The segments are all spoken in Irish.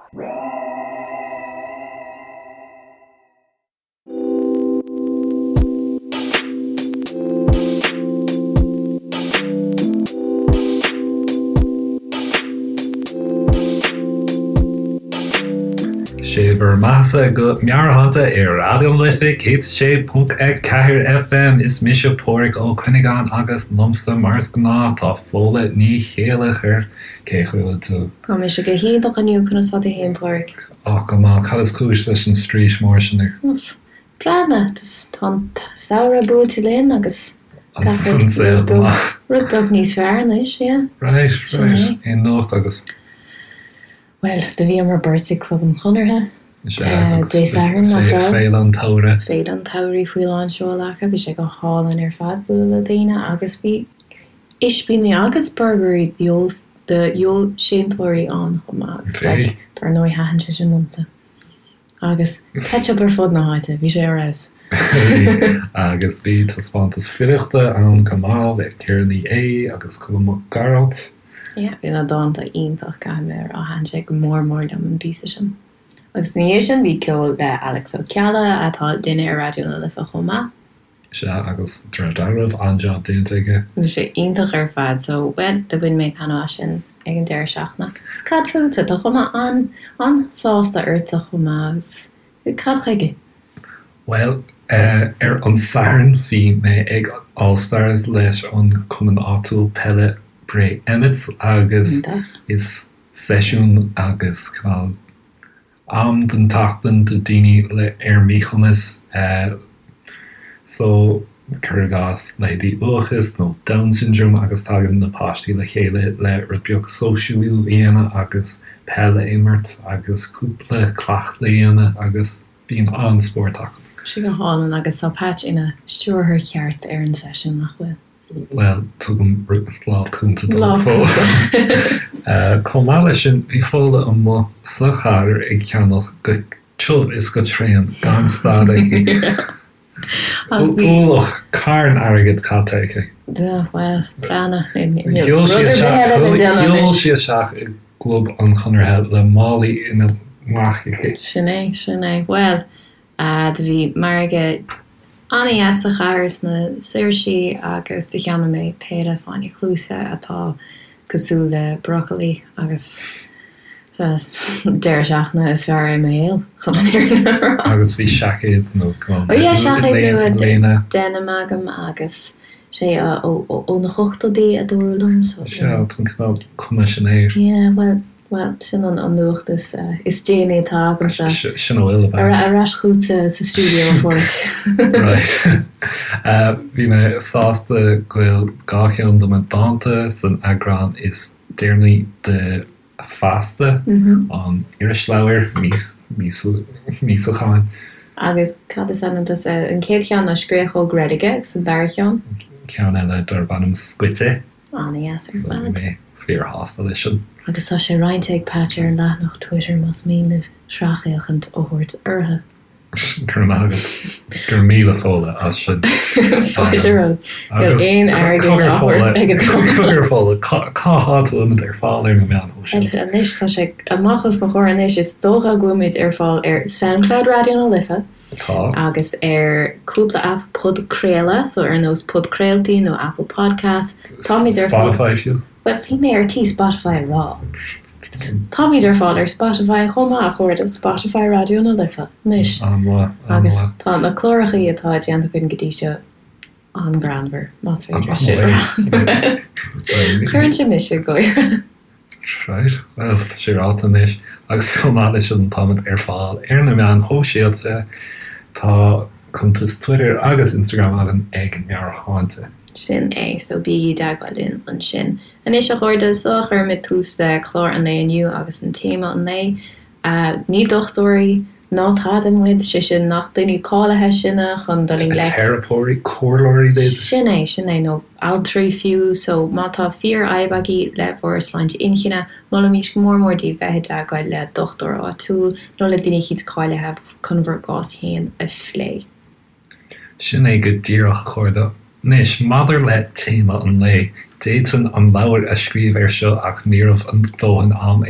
Sé bhur mbeathasa go Meabhairshláinte ar Raidió na Life 106.4 FM. Is mise Páraic Ó Cuinneagáin agus liomsa mar is gnáth tá Fódhla Ní Chéilleachair. Cén chaoi a bhfuil tú? Tá mise go hiontach inniu, conas tá tú fhéin Páraic? Ach go maith, cad is cúis leis an straois mór sin ort? Breathnaigh, tá an samhradh buailte linn agus gach rud beag, rud beag níos fearr anois, yeah. Right, right. Aon nuacht agat? Bhuel, do bhíomar beirt ag Club an Chonartha Dé Sathairn, nach raibh? Féile an tSamhraidh. Féile an tSamhraidh faoi lán seoil acu, bhí sé go hálainn ar fad bualadh le daoine agus bhí ispíní agus burgairí do fheoilséantóirí ann chomh maith agus dar ndóigh thaitin sé sin liomsa. Agus ketchup ar fud na háite, bhí sé ar fheabhas. Agus bhí taispeántas filíochta ann chomh maith le Ciara Ní É agus Colm Mac Gearailt. Yeah, bhí na dánta iontach, caithfidh mé a rá, thaitin sé go mór mór liom an píosa sin. Agus ina dhiaidh sin bhí ceol le Alex Ó Ceallaigh atá linn ar Raidió na Life chomh maith. Sea, agus de réir dealraimh, an-jab déanta aige. Bhí sé iontach ar fad, so, bhuel, do bhain mé taitneamh as sin ag an deireadh seachtaine. Agus cad fútsa? Tá cuma an-sásta ortsa chomh maith, agus cad chuige? Bhuel, ar an Satharn bhí mé ag All Stars leis an cumann áitiúil peile Bray Emmets agus is seisiún agus cineál am den tseachtain do daoine le ar míchumas so cuir i gcás leithéidí uathachas nó Down syndrome agus tagann na páistí le chéile le rud beag sóisialú a dhéanamh agus peil a imirt agus cúpla cleachtadh a dhéanamh agus bíonn an-spórt acu. Sé go hálainn agus tá Patch ina stiúrthóir ceart ar an seisiún, nach bhfuil? Bhuel, tugaim lámh chúnta dó. Lámh cúnta. Chomh maith leis sin, bhí Fódhla amuigh sa chathair ag ceannach go tiubh is go tréan gan stad aici. Ualach carn airgid caite aici. Bhuel, breathnaigh. Shiúil sí isteach i gClub an Chonartha le málaí ina glaic aici. Sin é, sin é. Bhuel, Do bhí margadh an-dheas sa chathair sna Saoirsí agus do cheannaigh mé péire fáinne cluaise atá cosúil le brocailí agus deireadh seachtaine is fearr i mo shaol, chun an fhírinne a rá. Agus bhí seaicéad nó Oh yeah, seaicéad nua denim agam agus sé ó na hochtóidí a dúradh liom so. Sea, tá an cineál cuma sin air. Yeah, bhuel. Bhuel, sin an nuacht is déanaí atá agamsa. Sin a bhfuil, ab ea? Ar ais chugatsa sa stiúideo, a Pháraic. Right. Bhí mé sásta go bhfuil 2 cheann de mo dánta san eagrán is deireanaí de Feasta, an irisleabhar míosúcháin. Agus cad is ainm duit? An chéad cheann ná Scréachóg Reilige agus an dara ceann? Ceann eile darb ainm Scoite. An-dheas ar fad. Bhí mé fíorshásta leis sin. Agus tá sé roinnte ag Patch ar an leathanach Twitter más mian libh sracfhéachaint a thabhairt orthu. Go raibh maith agat. Go raibh míle Fódhla as sin. Fáilte romhat. Níl aon airgead á thabhairt ag an Cogar Fódhla, cá háit a bhfuilimid ar fáil ar na meáin shóisialta? Anois tá sé amach os mo chomhair anois, is dócha go bhfuilimid ar fáil ar Soundcloud Raidió na Life. Tá. Agus ar cúpla aip podchraoladh, so ar nós Podchraoltaí nó Apple Podcasts. Táimid ar fáil. Spotify fiú. Bhuel, bhí mé ar tí Spotify a rá. Táimid ar fáil ar Spotify chomh maith, a chairde, Spotify Raidió na Life anois. An-mhaith, an-mhaith. Agus tá na clárachaí atá déanta againn go dtí seo an-ghreannmhar, más féidir sin a rá. Cuireann sé mise ag gáire. Right, bhuel, tá sé ráite anois. Agus chomh maith leis sin, táimid ar fáil ar na meáin shóisialta. Tá cuntas Twitter agus Instagram againn ag Meabhairshláinte. Sin é, so bígí i dteagmháil linn ansin. Anois, a chairde, sula gcuirimid tús le clár an lae inniu agus an téama an lae, ní dochtúirí ná tada muid, sé sin, nach daoine cáilithe sinne chun dul i ngleic. Teiripeoirí, comhairleoirí b'fhéidir. Sin é, sin é, nó altraí fiú. So, má tá fíorfhadhb agaibh le bhur sláinte inchinne, molaimís go mór mór daoibh bheith i dteagmháil le dochtúir áitiúil nó le duine eicínt cáilithe chun bhur gcás féin a phlé. Sin é go díreach, a chairde. Anois, maidir le téama an lae, d'fhéadfainn an leabhar a scríobh air seo ach ní raibh a ndóthain am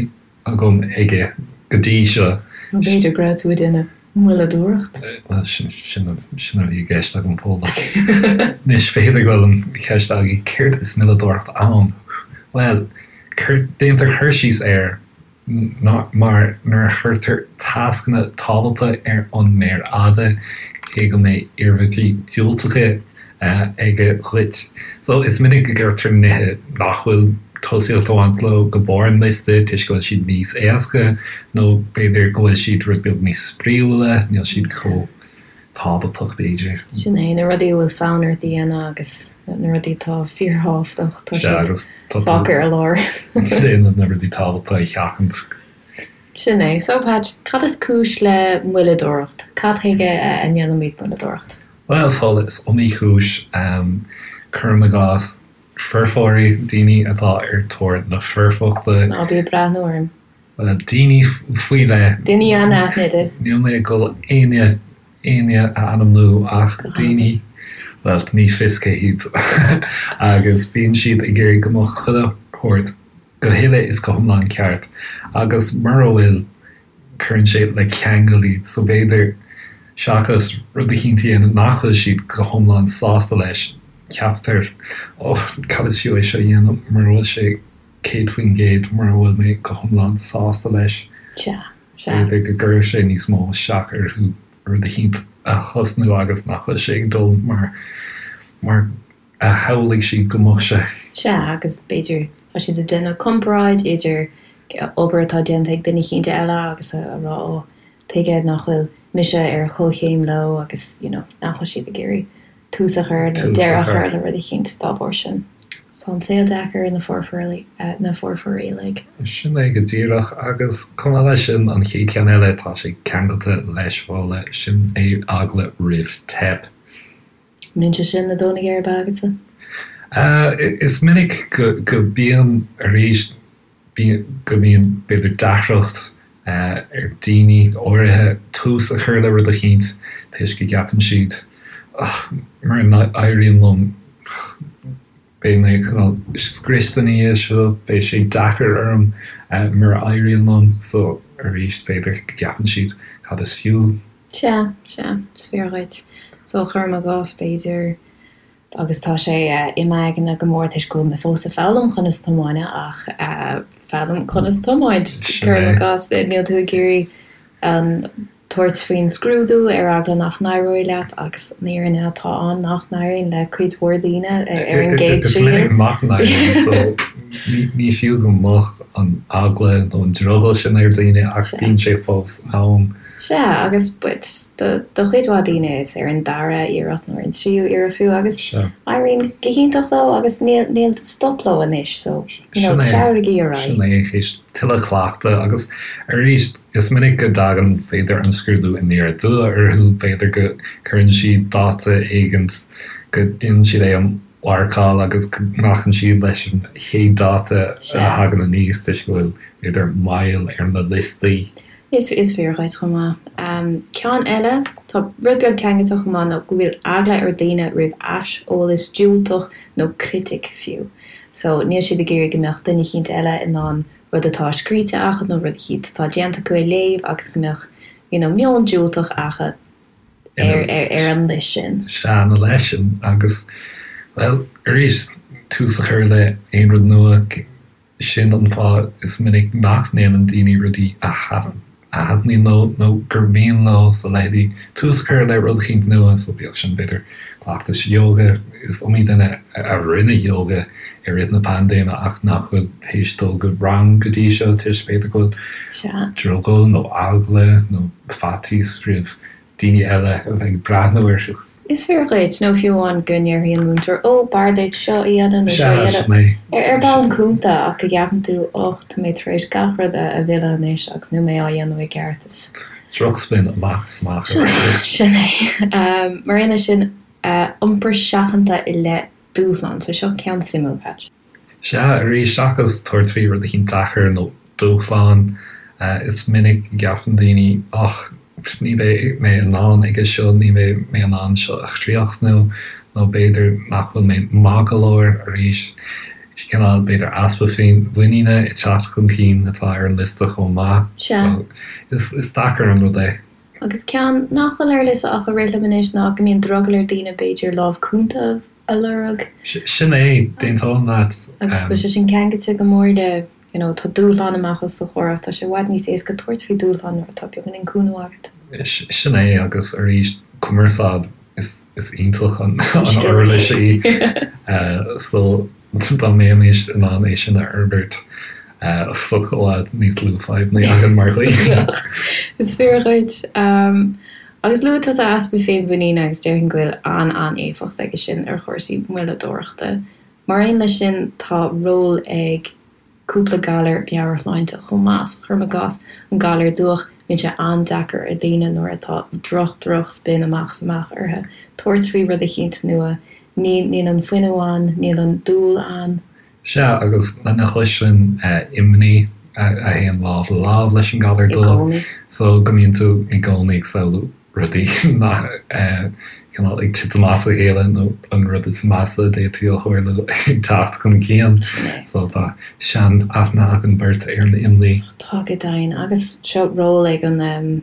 agam aige. go dtí seo. Nó b'fhéidir go raibh tú ag déanamh moilleadóireacht? Bhuel, sin a bhí i gceist agam, Fódhla. Anois, b'fhéidir go bhfuil an cheist agaibh, céard is moilleadóireacht ann? Bhuel, déantar cur síos air mar nuair a chuirtear tascanna tábhachtacha ar an méar fhada, cé go mbeidh iarmhairtí diúltacha aige dhuit. So, is minic go gcuirtear nithe nach bhfuil tosaíocht ag baint leo go barr an liosta toisc go bhfuil siad níos éasca nó b'fhéidir go bhfuil siad rud beag níos spraíúla, níl siad chomh tábhachtach b'fhéidir. Sin é, na rudaí a bhfuil fonn ort a dhéanamh agus na rudaí atá fíorthábhachtach, tá siad fágtha ar lár. Déanann na rudaí tábhachtacha a sheachaint. Sin é. So, Patch, cad is cúis le moilleadóireacht? Cad chuige a ndéanaimid moilleadóireacht? Bhuel, Fódhla, is iomaí cúis. Cuirim i gcás, foirfeoirí, daoine atá ar tóir na foirfeachta. Ná bí ag breathnú orm. Bhuel, daoine faoi leith. Daoine anaithnide. Níl mé ag dul éinne, éinne a ainmniú ach daoine, bhuel, ní fios cé hiad. Agus bíonn siad ag iarraidh go mbeadh chuile shórt go huile is go hiomlán ceart. Agus mura bhfuil, cuireann sé le ceangal iad. So b'fhéidir, seachas rud eicínt a dhéanamh nach bhfuil siad go hiomlán sásta leis, ceaptar, oh, cad is fiú é seo a dhéanamh mura bhfuil sé 100% mura bhfuil mé go hiomlán sásta leis. Sea, sea. B'fhéidir go gcuirfeadh sé níos mó isteach orthu rud eicínt a thosnú agus nach bhfuil sé ag dul mar, mar a shamhlaigh siad go mbeadh sé. Sea, agus b'fhéidir tá siad ag déanamh comparáid idir obair atá déanta ag duine eicínt eile agus a rá ó, tuige nach bhfuil mise ar chomhchéim leo agus you know nach bhfuil siad ag iarraidh tús a chur nó deireadh a chur le rud eicínt dá bharr sin. Tá an saol deacair ar na foirfeoirí, na foirfeoirí uilig. Sin é go díreach, agus chomh maith leis sin, an chéad cheann eile, tá sé ceangailte leis, Fódhla, sin é eagla roimh teip. Mbíonn sé sin ag dó na geirbe agatsa? Is minic go mbíonn, arís, go mbíonn b'fhéidir deacracht ar daoine áirithe tús a chur le rud eicínt toisc go gceapann siad mura n-éiríonn liom beidh mé cineál scriosta ina dhiaidh seo, beidh sé deacair orm mura éiríonn liom. So arís b'fhéidir go gceapann siad cad is fiú. Sea, sea, is fíor dhuit. So cuirim i gcás, b'fhéidir, agus tá sé i m'aigne go mór toisc go bhfuil mé fós ag foghlaim conas tiomáint ach foghlaim conas tiomáint, cuirim i gcás, níl tú ag iarraidh an tabhairt faoin scrúdú ar eagla nach n-éireoidh leat agus an fhírinne atá ann nach n-éiríonn le cuid mhór daoine ar an gcéad triail. Is minic nach n-éiríonn so ní fiú go mbeadh an eagla nó an drogall sin ar dhaoine ach bíonn sé fós ann. Sea, agus do chuid mhaith daoine is ar an dara iarracht nó ar an tríú iarracht fiú agus éiríonn go hiontach leo agus níl níl stop leo anois so you know treabhraigí ar aghaidh. Sin é, théis tuilleadh cleachtaidh agus arís is minic go dtagann b'fhéidir an scrúdú aniar aduaidh orthu, b'fhéidir go cuireann siad dáta éigint go ndéanann siad é a mharcáil agus go nglacann siad leis an chéad dáta a thagann aníos toisc go bhfuil b'fhéidir moill ar na liostaí. Is fíor dhuit chomh maith. Ceann eile, tá rud beag ceangailte chomh maith nó go bhfuil eagla ar daoine roimh aiseolas diúltach nó critic fiú. So, níl siad ag iarraidh go mbeadh duine eicínt eile in ann rud atá scríte acu nó rud eicínt atá déanta acu a léamh agus go mbeadh you know meon diúltach acu ar ar an leith sin. Sea, ina leith sin agus, bhuel, arís, tús a chur le aon rud nua, Sin an fáth is minic nach ndéanann daoine rudaí a thaitníonn leo nó gur mian leo, so leithéidí tús a chur le rud eicínt nua, so bíodh sin b'fhéidir cleachtais ióga, is iomaí duine a rinne ióga i rith na paindéime ach nach bhfuil théis dul go rang go dtí seo toisc b'fhéidir go bhfuil drogall nó eagla nó faitíos roimh daoine eile a bheith ag breathnú orthu. Is fíor dhuit, nó fiú amháin go ndéarfaidh an múinteoir, 'Ó, b'fhearr duit seo a dhéanamh nó seo a Sea, dhéanamh. Ar bhonn cúnta, ach go gceapann tú, 'Och, tá mé tar éis gach rud a mhilleadh anois agus níl mé á dhéanamh i gceart. Is. Drochspin amach is amach ar fad. Sin é. Mar aon leis sin, iompar seachanta i leith dúshlán. So seo ceann suimiúil, Patch. Sea, arís, seachas tabhairt faoi rud eicínt deacair nó dúshlán, is minic go gceapann daoine, och, ní bheidh mé in ann aige seo, ní bheidh mé in ann seo a chríochnú, nó b'fhéidir nach bhfuil mé maith go leor, arís. Cineál, b'fhéidir, easpa féinmhuiníne ag teacht chun cinn atá ar an liosta chomh maith. Sea. So, is, is deacair an rud é. Agus ceann nach bhfuil ar liosta ach a rith liom anois ná go mbíonn drogall ar daoine, b'fhéidir, lámh cúnta a lorg. Sin é, d'aontóinn leat. Agus go bhfuil sé sin ceangailte go mór le, you know, tá dúshlán amach os do chomhair ach tá sé i bhfad níos éasca tabhairt faoi dúshlán nuair atá beagáinín cúnamh agat. Sin é, agus arís, cumarsáid. Is iontach an uirlis í so dá mbeimis in ann é sin a fhorbairt bheadh i bhfad níos lú fadhbanna againn mar dhaoine. Is fíor dhuit. Agus luaigh tusa easpa féinmhuiníne agus déarfainn go bhfuil an-an-éifeacht aige sin ar chúrsaí moilleadóireachta. Mar aon leis sin tá ról ag cúpla galar meabhairshláinte chomh maith. So cuirim i gcás an galar dubhach, bíonn sé an-deacair ar daoine nuair atá droch droch spin amach is amach orthu tabhairt faoi rud eicínt nua. Níl níl an fuinneamh ann, níl an dúil ann. Sea, agus lena chois sin, imní a théann lámh le lámh leis an galar I dubhach. gcónaí. So go mbíonn tú i gcónaí ag samhlú rudaí nach cineál ag titim as a chéile nó an rud is measa a d'fhéadfadh a tharlú ag teacht chun cinn. So tá sean-aithne againn beirt ar an imní. Tá go deimhin. Agus seo ról ag an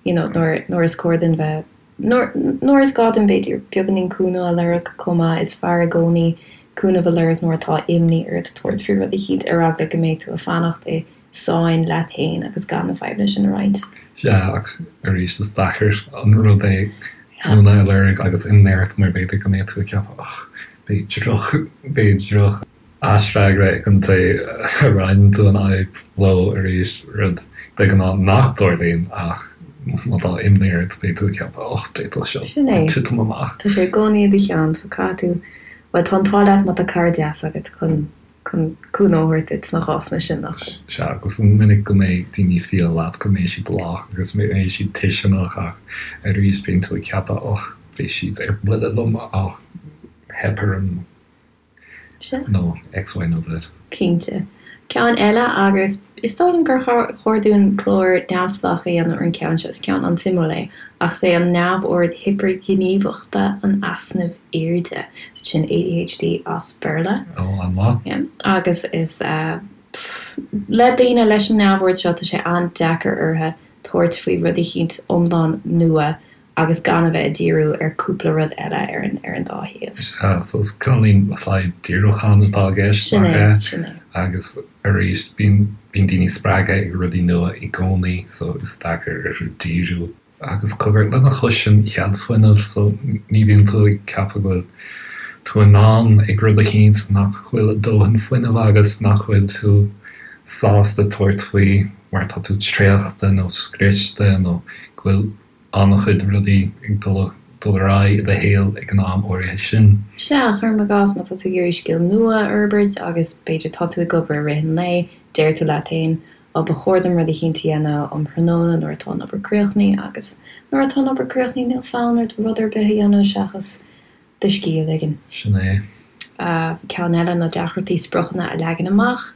you know nuair nuair is cóir dúinn bheith nuair nuair is gá dúinn b'fhéidir beagáinín cúnamh a lorg chomh maith. Is fearr i gcónaí cúnamh a lorg nuair atá imní ort tabhairt faoi rud eicínt ar eagla go mbeidh tú ag fanacht i sáinn leat féin agus gan na fadhbanna sin a roinnt. Sea, ach arís is deacair an rud é cúnamh a lorg agus imní ort mar b'fhéidir go mbeidh tú ag ceapadh och, beidh droch, beidh droch aisfhreagra ag an té a roinneann tú an fhadhb leo arís, rud de ghnáth nach dtarlaíonn ach má tá imní ort beidh tú ag ceapadh och, d'fhéadfadh seo Sin é. titim amach. Tá sé i gcónaí i do cheann so caithfidh tú, bhuel tá an t-ádh leat má tá cara deas agat chun chun cúnamh a thabhairt duit sna cásanna sin, nach ea? Sea, agus is minic go mbeidh daoine fial leat, go mbeidh siad lách agus go mbeidh siad tuisceanach ach arís bíonn tú ag ceapadh och, beidh siad ar buile liom, och, theip orm Sea. nó X, Y nó Z. Cinnte. Ceann eile agus is dóigh liom gur chóir dúinn clár neamhspleách a dhéanamh ar an gceann seo, is ceann an-suimiúil é, ach is é an neamhord hipirghníomhachta an easnaimh airde. Sin ADHD as Béarla. Ó, an-mhaith. Yeah. Agus is le daoine leis an neamhord seo tá sé an-deacair orthu tabhairt faoi rud eicínt iomlán nua agus gan a bheith ag díriú ar cúpla rud eile ar an ar an dá thaobh. Sea, so is cineáilín fadhb díriúcháin atá i gceist, Sin nach é, ea? sin é. Agus arís, bíonn bíonn daoine spreagtha ag rudaí nua i gcónaí, so is deacair orthu díriú. Agus cogar, lena chois sin, cead fuinnimh, so ní bhíonn tú ag ceapadh go bhfuil tú in ann ag rud eicínt, nach bhfuil dóthain fuinnimh agat, nach bhfuil tú sásta tabhairt faoi mar tá tú traochta nó scriosta nó go bhfuil an-chuid rudaí ag dul dul ar aghaidh i do shaol ag an am áirithe sin. Sea, cuirim i gcás, má tá tú ag iarraidh scil nua a fhorbairt agus b'fhéidir tá tú ag obair i rith an lae, deir tú leat féin, Á, ba chóir dom rud eicínt a dhéanamh um thráthnóna nuair atá an obair críochnaithe agus nuair atá an obair críochnaithe níl fonn ort rud ar bith a dhéanamh seachas do scíth a ligean. Sin é. Ceann eile ná deacrachtaí spriocanna a leagan amach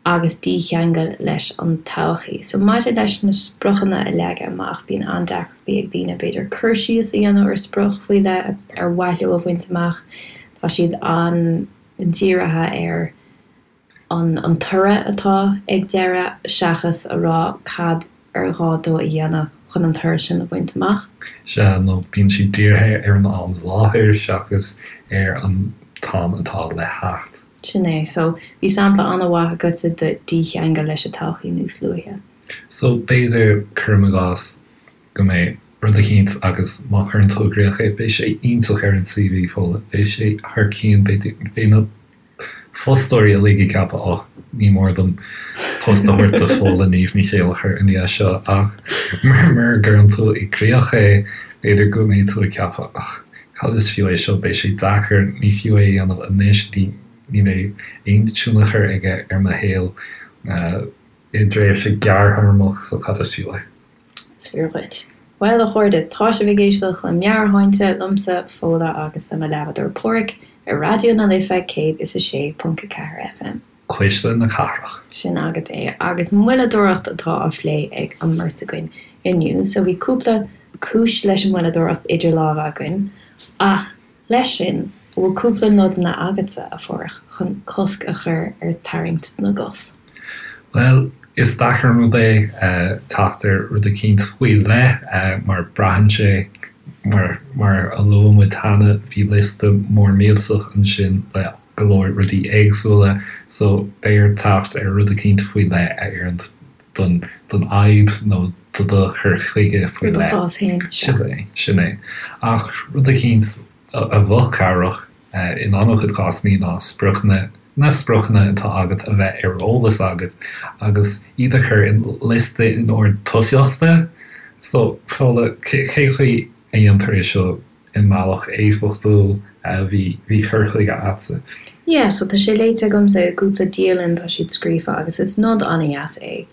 agus dícheangal leis an todhchaí. So maidir leis na spriocanna a leagan amach, bíonn an-deacrachtaí ag daoine b'fhéidir cur síos a dhéanamh ar sprioc faoi leith ar mhaith leo a bhaint amach. Tá siad an-dírithe ar. an toradh atá ag deireadh seachas a rá cad ar ghá dó a dhéanamh chun an toradh sin a bhaint amach. Sea, nó bíonn siad dírithe ar an am i láthair seachas ar an t-am atá le theacht. Sin é. So, bhí sampla an-mhaith agatsa de dícheangal leis an todhchaí níos luaithe. So, b'fhéidir, cuirim i gcás, go mbeidh rud eicínt agus má chuireann tú i gcrích é, beidh sé iontach ar an CV, Fódhla, beidh sé thar cionn, beidh na. fostóirí uilig ag ceapadh och, ní mór dom post a thabhairt do Fódhla Niamh Ní Chéilleachair i ndiaidh seo ach mura gcuireann tú i gcrích é, b'fhéidir go mbeidh tú ag ceapadh och, cad is fiú é seo, beidh sé deacair, ní fiú é a dhéanamh anois, ní ní bheidh aon tionchar aige ar mo shaol i dtréimhse gearrthéarmach so cad is fiú é. Is fíor dhuit. Bhuel, a chairde, tá sibh ag éisteacht le Meabhairshláinte, liomsa, Fódhla, agus le mo leathbhádóir Páraic, ar Raidió na Life 106.4 FM. Cuisle na Cathrach. Sin agat é. Agus moilleadóireacht atá á phlé ag an mbeirt againn inniu. So bhí cúpla cúis leis an moilleadóireacht idir lámha againn, ach leis sin. An bhfuil cúpla nodanna agatsa, a Pháraic, chun cosc a chur ar tarraingt na gcos? Bhuel, is deacair an rud é teacht ar rud eicínt faoi leith mar braitheann sé, mar mar a luaigh muid cheana, bhí liosta mór millteach ansin le go leor rudaí éagsúla so beidh ort teacht ar rud eicínt faoi leith a oireann don don fhadhb nó do do chur chuige faoi leith. Do chás féin, sea. Sin é, sin é. Ach rud eicínt a bheadh cabhrach in an-chuid cásanna ná spriocanna, na spriocanna atá agat a bheith ar eolas agat agus iad a chur in liosta in ord tosaíochta. So, Fódhla, cé chaoi a dhéantar é seo i mbealach éifeachtúil? Bhí, bhí cur chuige a'dsa. Yeah, so tá sé léite agamsa i gcúpla dialann, tá siad scríofa agus is nod an-dheas é,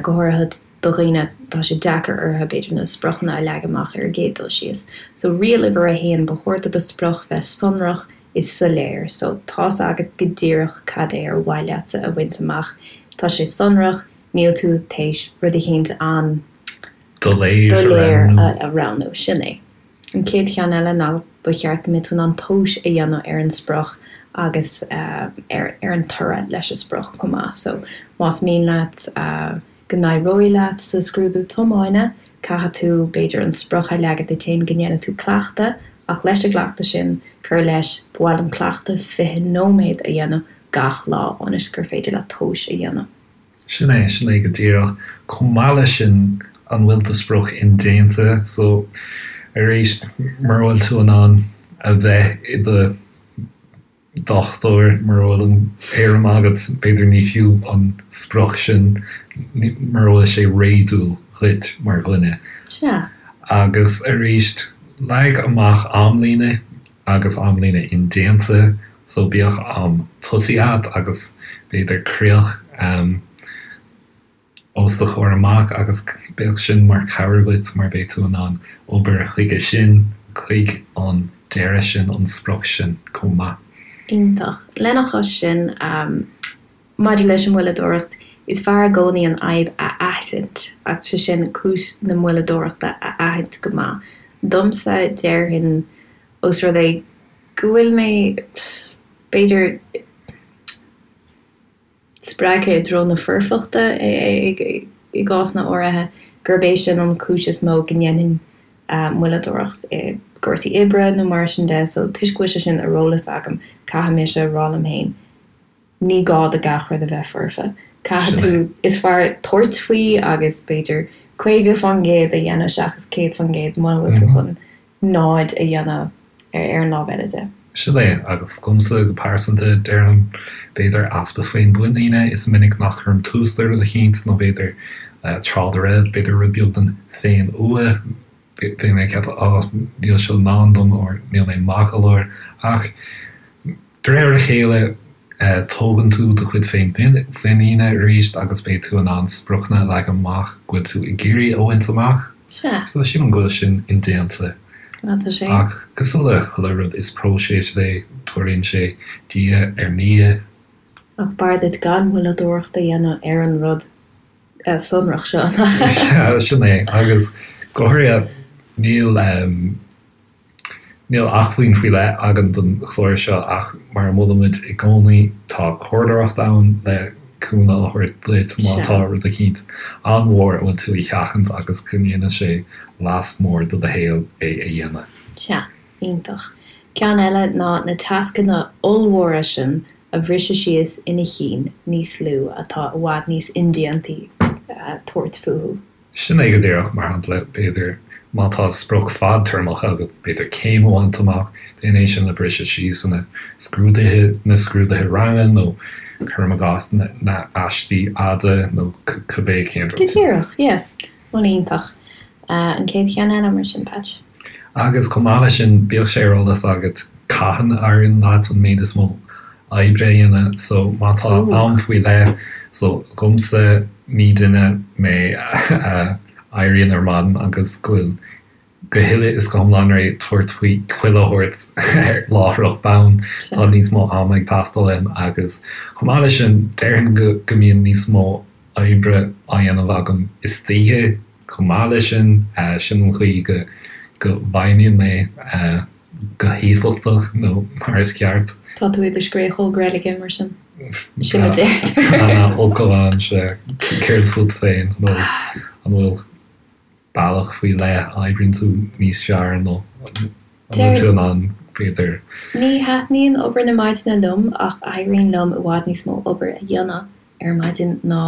go háirithe do dhaoine, tá sé deacair orthu, b'fhéidir, na spriocanna a leagan amach ar an gcéad dul síos. So, riail uimhir a haon, ba chóir do do sprioc bheith sonrach is soiléir. So, tá's agat go díreach cad é ar mhaith leatsa a bhaint amach. Tá sé sonrach, níl tú théis rud eicínt an-doiléir a roghnú. Sin é. An chéad cheann eile ná ba cheart go mbeadh tú in ann tomhas a dhéanamh ar an sprioc agus ar an toradh leis an sprioc chomh maith. So, más mian leat go n-éireoidh leat sa scrúdú tiomána, caithfidh tú, b'fhéidir, an sprioc a leagan duit féin go ndéanfaidh tú cleachtadh, ach leis an gcleachtadh sin, cur leis, ba mhaith liom cleachtadh 20 nóiméad a dhéanamh gach lá ionas gur féidir leat tomhas a dhéanamh. Sin é, sin é go díreach. Chomh maith leis sin, an bhfuil do sprioc indéanta? So, arís, mura bhfuil tú in ann a bheith i do dhochtúir, mura bhfuil an éirim agat, b'fhéidir ní fiú an sprioc sin, mura bhfuil sé réadúil dhuit mar dhuine. Sea. Agus arís, leag amach amlíne agus amlíne indéanta, so bíodh am tosaigh agat agus b'fhéidir críoch. os do chomhair amach agus bíodh sin mar chabhair duit mar beidh tú in ann obair chuige sin, chuig an deireadh sin, an sprioc sin chomh maith. Iontach. Lena chois sin, maidir leis an moilleadóireacht, is fearr i gcónaí an fhadhb a aithint, agus sé sin cúis na moilleadóireachta a aithint go maith. Domsa, déarfainn, ós rud é go bhfuil mé, b'fhéidir, spreagtha i dtreo na foirfeachta i gcásanna áirithe, gurb é sin an chúis is mó go ndéanfainn moilleadóireacht i gcúrsaí oibre nó mar sin de. So, toisc go bhfuil sé sin ar eolas agam, caithfidh mise a rá liom féin, ní gá do gach rud a bheith foirfe. Caithfidh tú, is fearr tabhairt faoi agus b'fhéidir 50% a dhéanamh seachas 100% muna bhfuil tú chun náid a dhéanamh ar an lámh eile de. Sin é, agus domsa go pearsanta, déarfainn, b'fhéidir easpa féinmhuiníne, is minic nach gcuirim tús le rud eicínt, nó b'fhéidir tráth dá raibh, b'fhéidir rud beag den féinfhuath, bhí mé ag ceapadh, á, níl seo i ndán dom, or níl mé maith go leor, ach De réir a chéile, tógann tú do chuid féinmhuiníne arís agus beidh tú in ann spriocanna a leagan amach go bhfuil tú ag iarraidh a bhaint amach. Sea. So sílim go bhfuil sin indéanta. Á, tá sé. Ach cosúil le chuile rud, is próiseas é, tarlaíonn sé diaidh ar ndiaidh. Ach b'fhearr duit gan moilleadóireacht a dhéanamh ar an rud sonrach seo. Sea, sin é. Agus go háirithe, níl. Níl acmhainn faoi leith againn don chlár seo ach mar a mholaimid i gcónaí, tá comhairleoireacht ann le cúnamh a thabhairt duit má tá rud eicínt an-mhór a bhfuil tú a sheachaint agus go ndéanfaidh sé leas mór do do shaol é a dhéanamh. Sea, iontach. Ceann eile ná na tascanna ollmhóra sin a bhriseadh síos ina chinn níos lú atá i bhfad níos indéantaí tabhairt fúthu. Sin é go díreach, mar shampla, b'fhéidir, má tá sprioc fadtéarmach agat, b'fhéidir céim a bhaint amach, déan é sin a bhriseadh síos ina scrúduithe, na scrúduithe ranga nó, cuirim i gcás, na aistí fhada nó cibé cén rud. Go díreach, yeah. Bhuel, iontach. An chéad cheann eile mar sin, Patch? Agus chomh maith leis sin, bíodh sé ar eolas agat cathain a éiríonn leat an méid is mó oibre a dhéanamh. So má tá am faoi leith, so dhomsa ní duine mé a éiríonn ar maidin agus go bhfuil go huile is go hiomlán réidh tabhairt faoi chuile shórt láithreach bonn. Tá níos mó ama ag teastáil uaim agus chomh maith leis sin déarfainn go go mbíonn níos mó oibre á dhéanamh agam istoíche chomh maith leis sin. Sin an chaoi go go bhfeidhmíonn mé. go héifeachtach nó mar is ceart. Tá tú i do scréachóg reilige mar sin. Sin a deirtear. Tá focal ann, sea. Céard fút féin? An bhfuil, an bhfuil bealach faoi leith a oibríonn tú níos fearr nó an bhfuil tú in ann, b'fhéidir. Ní thaitníonn obair na maidine liom ach éiríonn liom i bhfad níos mó obair a dhéanamh ar maidin ná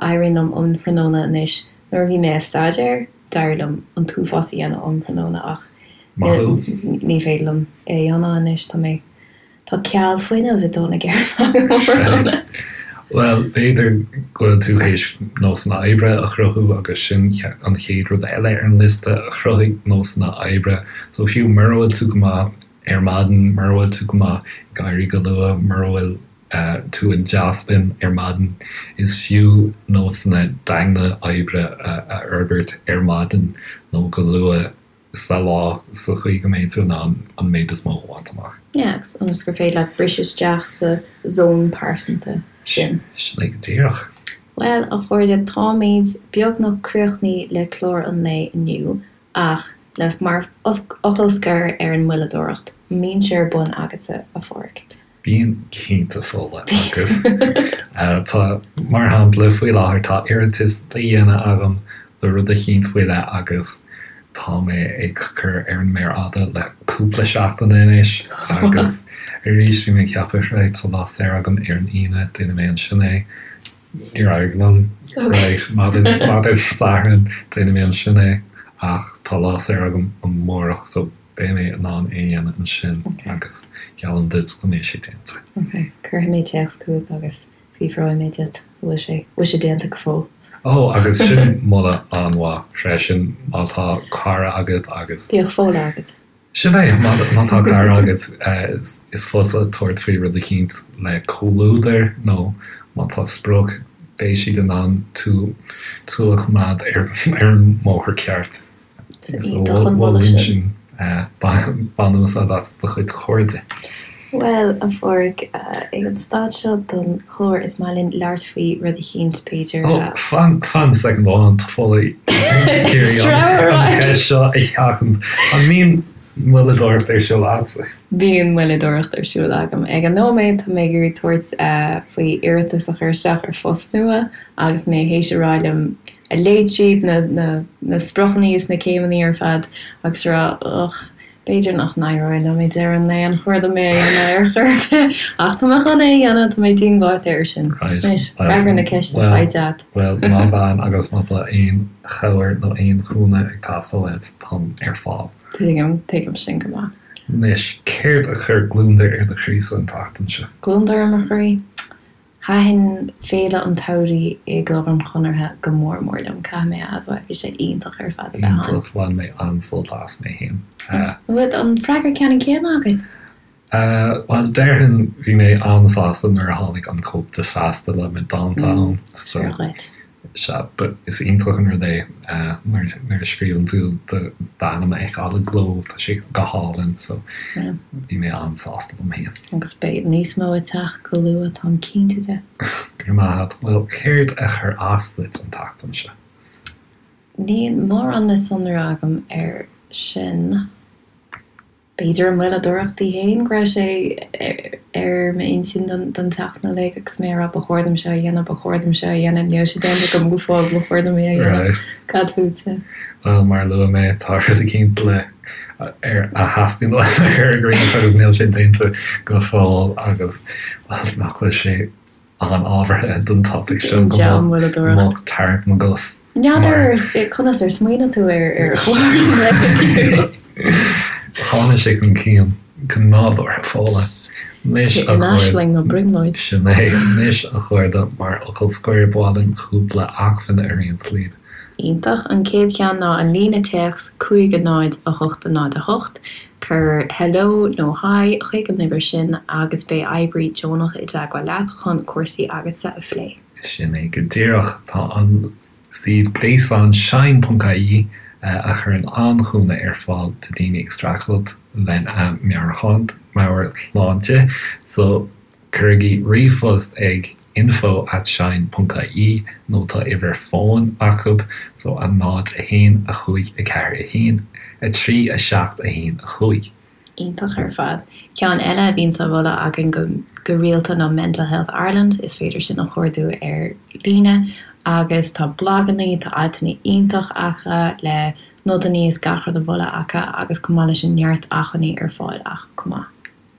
éiríonn liom um thráthnóna anois. Nuair a bhí mé ag staidéar, d'éirigh liom an t-uafás a dhéanamh um thráthnóna ach ní féidir liom é a dhéanamh anois. Tá mé, tá ceal fuinnimh ag dul na gceird agam um thráthnóna. Bhuel, b'fhéidir go bhfuil tú théis nósanna oibre a chruthú agus sin an chéad rud eile ar an liosta, cruthaigh nósanna oibre. So fiú mura bhfuil tú go maith ar maidin, mura bhfuil tú go maith ag éirí go luath, mura bhfuil tú i dteaspin ar maidin. Is fiú nósanna daingne oibre a fhorbairt ar maidin nó go luath sa lá sa chaoi go mbeidh tú in ann an méid is mó a bhaint amach. Yeah, agus ionas gur féidir leat briseadh isteach sa zón pearsanta sin. Sin é go díreach. Bhuel, a chairde, táimid beagnach críochnaithe le clár an lae inniu, ach le mar fhocal scoir ar an moilleadóireacht, an mbíonn sé ar bun agatsa, a Pháraic? Bíonn cinnte, Fódhla, agus tá, mar shampla, faoi láthair tá iarratas le dhéanamh agam le rud eicínt faoi leith agus tá mé ag cur ar an méar fhada le cúpla seachtain anois agus arís bhí mé ag ceapadh, right, tá lá saor agam ar an Aoine, déanfaidh mé ansin é. Níor éirigh liom. Right, maidin, maidin Sathairn, déanfaidh mé ansin é ach tá lá saor agam amárach so Beidh mé in ann é a dhéanamh ansin agus geallaim duit go mbeidh sé déanta. Ok, cuirfidh mé téacs chugat agus fiafróidh mé díot an bhfuil sé, bhfuil sé déanta go fóill. Ó, agus sin moladh an-mhaith freisin, má tá cara agat agus. Bíodh Fódhla agat. Sin é, má tá cara agat, is fusa tabhairt faoi rud eicínt le comhluadar nó má tá sprioc, beidh siad in ann tú, tú a choimeád ar an mbóthar ceart. Iontach an moladh sin. Bain úsáid as do chuid cairde. Bhuel, a Pháraic, ag an staid seo den chlár is maith linn labhairt faoi rud eicínt, b'fhéidir. Ó, fan, fan soicind amháin, tá Fódhla ag iarraidh an cheist seo a sheachaint. An mbíonn moilleadóireacht ar siúl agatsa? Bíonn moilleadóireacht ar siúl agam. Ag an nóiméad, tá mé ag iarraidh tabhairt faoi iarratas a chur isteach ar phost nua agus mé théis a rá liom a léigh tríd na na spriocanna is na céimeanna ar fad agus a rá ugh, b'fhéidir nach n-éireoidh liom ag deireadh an lae, an chóir dom é a dhéanamh ar chor ar bith? Ach tá mé chun é a dhéanamh, tá mé díongbháite air sin. Right. Anois, freagair na ceiste faighte agat. Bhuel, má bhean agus má tá aon chabhair nó aon chúnamh ag teastáil uait, táim ar fáil. Tuigim, tuigim sin go maith. Anois, céard a chuir gliondar ar do chroí-sa an tseachtain seo? Gliondar ar mo chroí? Thaitin Féile an tSamhraidh i gClub an Chonartha go mór mór liom, caithfidh mé a admháil. Bhí sé iontach ar fad a bheith ann. Iontach, bhain mé an-sult as mé féin. An bhfuil an freagra ceannann céanna againn? Bhuel, déarfainn, bhí mé an-sásta nuair a tháinig an cóip de Feasta le mo dánta ann. Is fíor dhuit. Sea, but is iontach an rud é nuair a scríobhann tú d'ainm a fheiceáil i gcló, tá sé go hálainn, so bhí mé an-sásta liom féin. Agus beidh níos mó ag teacht go luath, táim cinnte de. Go raibh maith agat. Bhuel, céard a chuir as duit an tseachtain seo? Níl mórán le sonrú agam air sin. B'fhéidir an mhoilleadóireacht í féin, go raibh sé ar m'intinn don tseachtain uilig agus mé ag rá ba chóir dom seo a dhéanamh, ba chóir dom seo a dhéanamh, níl sé déanta agam go fóill, ba chóir dom é a dhéanamh. Cad fútsa? Bhuel, mar a luaigh mé, tá rud eicínt le ar a theastaíonn uaim a chur i gcrích agus níl sé déanta go fóill agus, bhuel, nach bhfuil sé an-ábhartha don topaic seo go mbeadh tarraingt na gcos. N'fheadar conas ar smaoinigh tú ar chlár an lae Tháinig sé chun cinn go nádúrtha, Fódhla. Anois a aisling nó brionglóid. Sin é. Anois a chairde, mar fhocal scoir, ba mhaith linn cúpla acmhainn a roinnt libh. Iontach. An chéad cheann ná an líne téacs 5 0 8 0 8. Cuir Hello nó Hi chuig an uimhir sin agus beidh oibrí deonach i dteagmháil leat chun cúrsaí agatsa a phlé. Sin é go díreach. Tá an suíomh gréasáin shine.ie a chuireann an-chúnamh ar fáil do daoine ag streachailt lena meabhairshláinte. So. Cuirigí ríomhphost ag info at shine ponc ie nó tá uimhir fóin acu so 0 1 5 4 1 3 7 1 5. Iontach ar fad. Ceann eile a bhíonns á mholadh againn go go rialta ná Mental Health Ireland, is féidir sin a chuardú ar líne agus tá blagannaí, tá altanna iontach acu le nodannaí is gach rud a mholadh acu agus chomh maith leis sin neart acmhainní ar fáil acu chomh maith.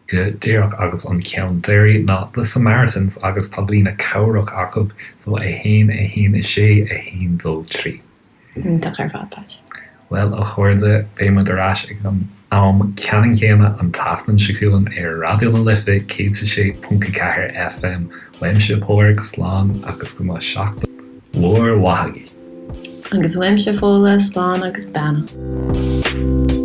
Go díreach agus an ceann deiridh ná The Samaritans agus tá líne cabhrach acu so 1 1 6 1 2 3. Iontach ar fad, Pat. Bhuel, a chairde, beidh muid ar ais ag an am ceannann céanna an tseachtain seo chugainn ar Raidió na Life 106.4 FM. Uaimse Pádraig, slán agus go mbeadh seachtain mhór mhaith agaibh. Agus uaimse Fódhla, slán agus beannacht.